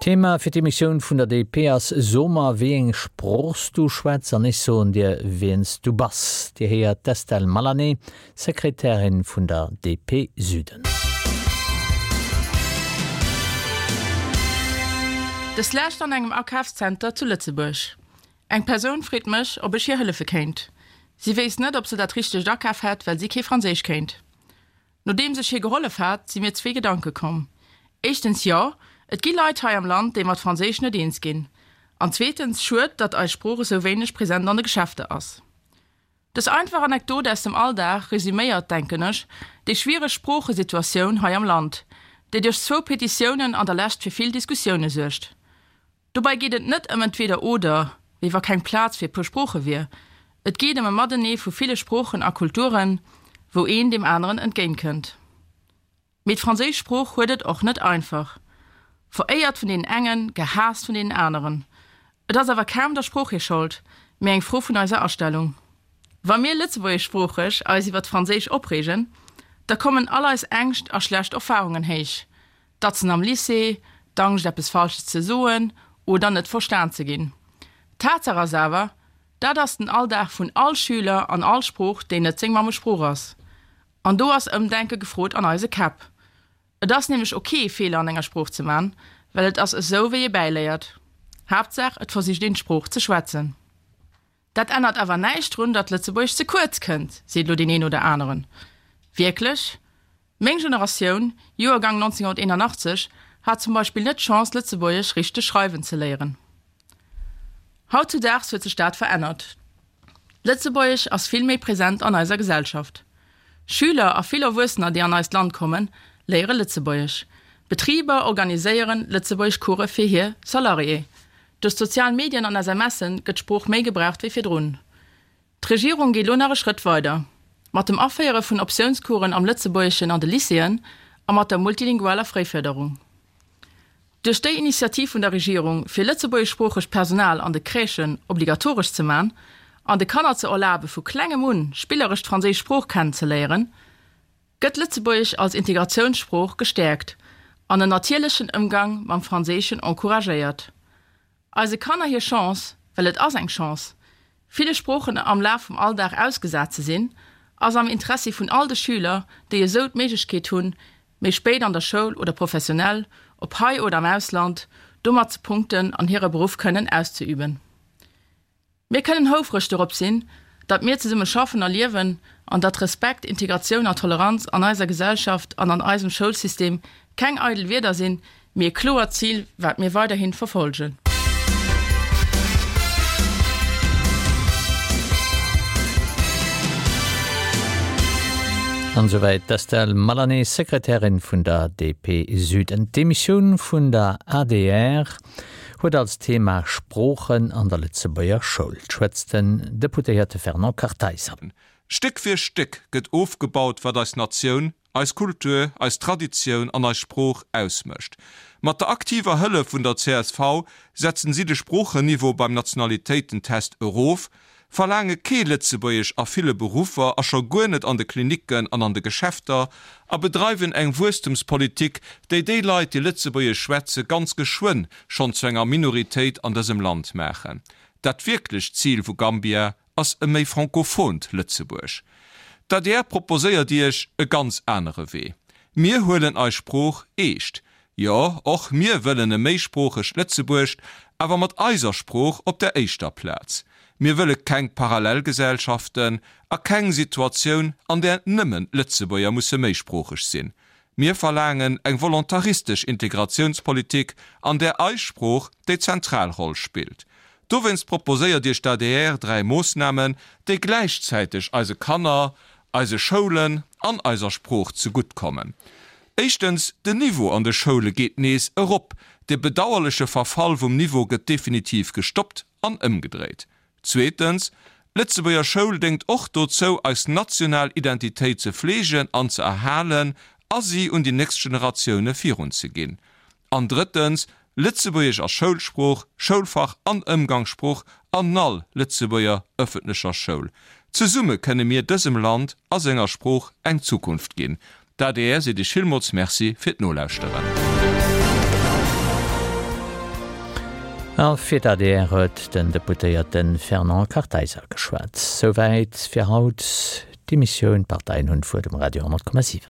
Thema fir d'Emissioun vun der DP ass So mer wéi eng Sprooch s du schwätz an ech soen dir wien s du bass. Dir héiert d'Estelle Malané, Sekretärin vun der DP Süden. Des Lescht an engem Akafszenter zu Lëtzebuerg. Eng Persoun freet mech, ob ech hir hëllefe kéint. Si wéisst net, ob se dat richtegt akaf hätt, well si kee Franséisch kéint. Nodeems ech hir gehollef hat, si mir zwee Gedanke komm. Éischtens, jo, et gi Leit hei am Land, déi mat Franséisch net eens ginn. An zweetens, schued, datt eis Sprooch esou wéineg present an de Geschäfter ass. Dës einfach Anekdot aus dem Alldag resüméiert, denken ech, déi schwiereg Sproochesituatioun hei am Land, déi duerch zwou Petitiounen an der Lescht fir vill Diskussioune suergt. Dobäi geet et net ëm entweder oder, wéi wa keng Plaz fir e puer Sprooche wier. Et geet ëm e Matenee vu ville Sproochen a Kulturen, wou een deem aneren entgéintkënnt. Mee d'franséisch Sprooch huet et och net einfach. Veréiert vun deenen engen, gehaasst vun deenen aneren. Et ass awer kaum der Sprooch hir Schold, mee eng Fro vun eiser Astellung. Wa mir lëtzebuergeschsproocheg eis iwwer d'Franséisch opreegen, da kommen all eis Ängscht a schlecht Erfarungen héich. D'Datzen am Lycée, d'Angscht eppes Falsches ze soen oder net verstan ze ginn. Tatsaach ass awer, dat ass den Alldag vun all Schüler an all Sprooch, déi net seng Mammesprooch ass. An do ass Ëmdenke gefrot an eise Käpp. Et ass nämlech ok Feeler an enger Sprooch ze man, well et ass esou wéi ee bäiléiert. Haaptsaach et versicht een d'Sprooch ze schwätzen. Dat ännert awer näischt drun, datt Lëtzebuergesch ze kuerz kënnt, seet elo deen een oder aneren. Wierklech? Meng Generatioun, Joergang 1981, hat zum Beispill net d'Chance, Lëtzebuergesch richteg schreiwen ze léieren. Hautzudaags huet sech dat verännert. Lëtzebuergesch ass vill méi present an eiser Gesellschaft. Schüler a vill Erwuessener, déi an eist Land kommen, léiere Lëtzebuergesch. Betriber organiséieren Lëtzebuergeschcourse fir hir Salarié. Duerch d'sozial Medien an SMSe gëtt d'Sprooch méi gebraucht wéi virdrun. D'Regierung geet lo nach e Schrëtt weider. Mat dem Aféiere vun Optiounscoursen am Lëtzebuergeschen an de Lycéeën a mat der multilingualer Fréifërderung. Duerch déi Initiativ vun der Regierung, fir lëtzebuergeschsproochegt Personal an de Crèchen obligatoresch ze man an de Kanner ze erlabe vu klengem un spilleresch d'franséisch Sprooch kennen ze léieren, gëtt Lëtzebuergesch als Integratiounssprooch gestäerkt an en natierlechen Ëmgang mam Franséischen encouragéiert. Eise Kanner hir Chance, well et ass eng Chance, ville Sproochen am Laf vum Alldag ausgesat ze sinn, ass am Interessi vun all de Schüler, déi esou d'Méiglechkeet hunn, méi spéit an der Schoul oder professionell, ob hei oder am Ausland, domat ze punkten an hire Beruff kënnen auszeüben. Mir kënnen houfreg dorop sinn, datt mir zesumme schaffen a liewen an datt Respekt, Integratioun a Toleranz an eiser Gesellschaft an an eisem Schoulsystem keng eidel Wierder sinn, mee e kloert Zil, wat mir weiderhin verfolgen. An esouwäit d'Estelle Malané, Sekretärin vun der DP Süden. D'Emissioun vun der adr huet als Thema Sproochen an der Lëtzebuerger Schoul. 't schwätzt den Deputéierte Fernand Kartheiser. Stéck fir Stéck gëtt ofgebaut, wat eis Natioun, eis Kultur, eis Traditioun an eis Sprooch ausmécht. Mat der aktiver Hëllef vun der csv setzen si de Sproochenniveau beim Nationalitéitentest erof, verlaange kee Lëtzebuergesch a ville Beruffer a scho guer net an de Klinicken an an de Geschäfter a bedreiwen eng Wuesstemspolitik, déi déi Leit, déi Lëtzebuergesch schwätze, ganz geschwënn schonn zu enger Minoritéit an dësem Land maachen. Dat wierklecht Zil vu Gambia ass e méi frankophont Lëtzebuerg. D'adr proposéiert Iech e ganz anere Wee. Mir huelen eis Sprooch eescht. Jo, och mir wëllen e méisproochegt Lëtzebuerg, awer mat eiser Sprooch op der éischter Plaz. Mir wëlle keng Parallelgesellschaften a keng Situatioun, an där nëmmen d'Lëtzebuerger musse méisproocheg sinn. Mir verlaangen eng volontaristesch Integratiounspolitik, an där eis Sprooch déi zentral Roll spillt. Dowéinst proposéiert Iech d'ADR 3 Moossnamen, déi gläichzäiteg eise Kanner, eise Schoulen an eiser Sprooch zegutt kommen. Éischtens, den Niveau an de Schoule geet nees erop. De bedauerleche Verfall vum Niveau gëtt definitiv gestoppt an ëmgedréit. Zweetens, d'Lëtzebuerger Schoul déngt och dozou, eis national Identitéit ze fleegen an ze erhalen a si un déi nächst Generatioune virunzeginn. An drëttens, Lëtzebuergesch ass Schoulsprooch, Schoulfach an Ëmgangssprooch an all Lëtzebuerger ëffentlecher Schoul. Zesumme kënne mir dësem Land a senger Sprooch eng Zukunft ginn. D'adr seet Iech villmools Merci fir d'Nolauschteren. A fir d'ADR huet den Deputéierte Fernand Kartheiser geschwat. Souwäit fir haut d'Emissioun D'Parteien hunn d'Wuert um Radio 10,7.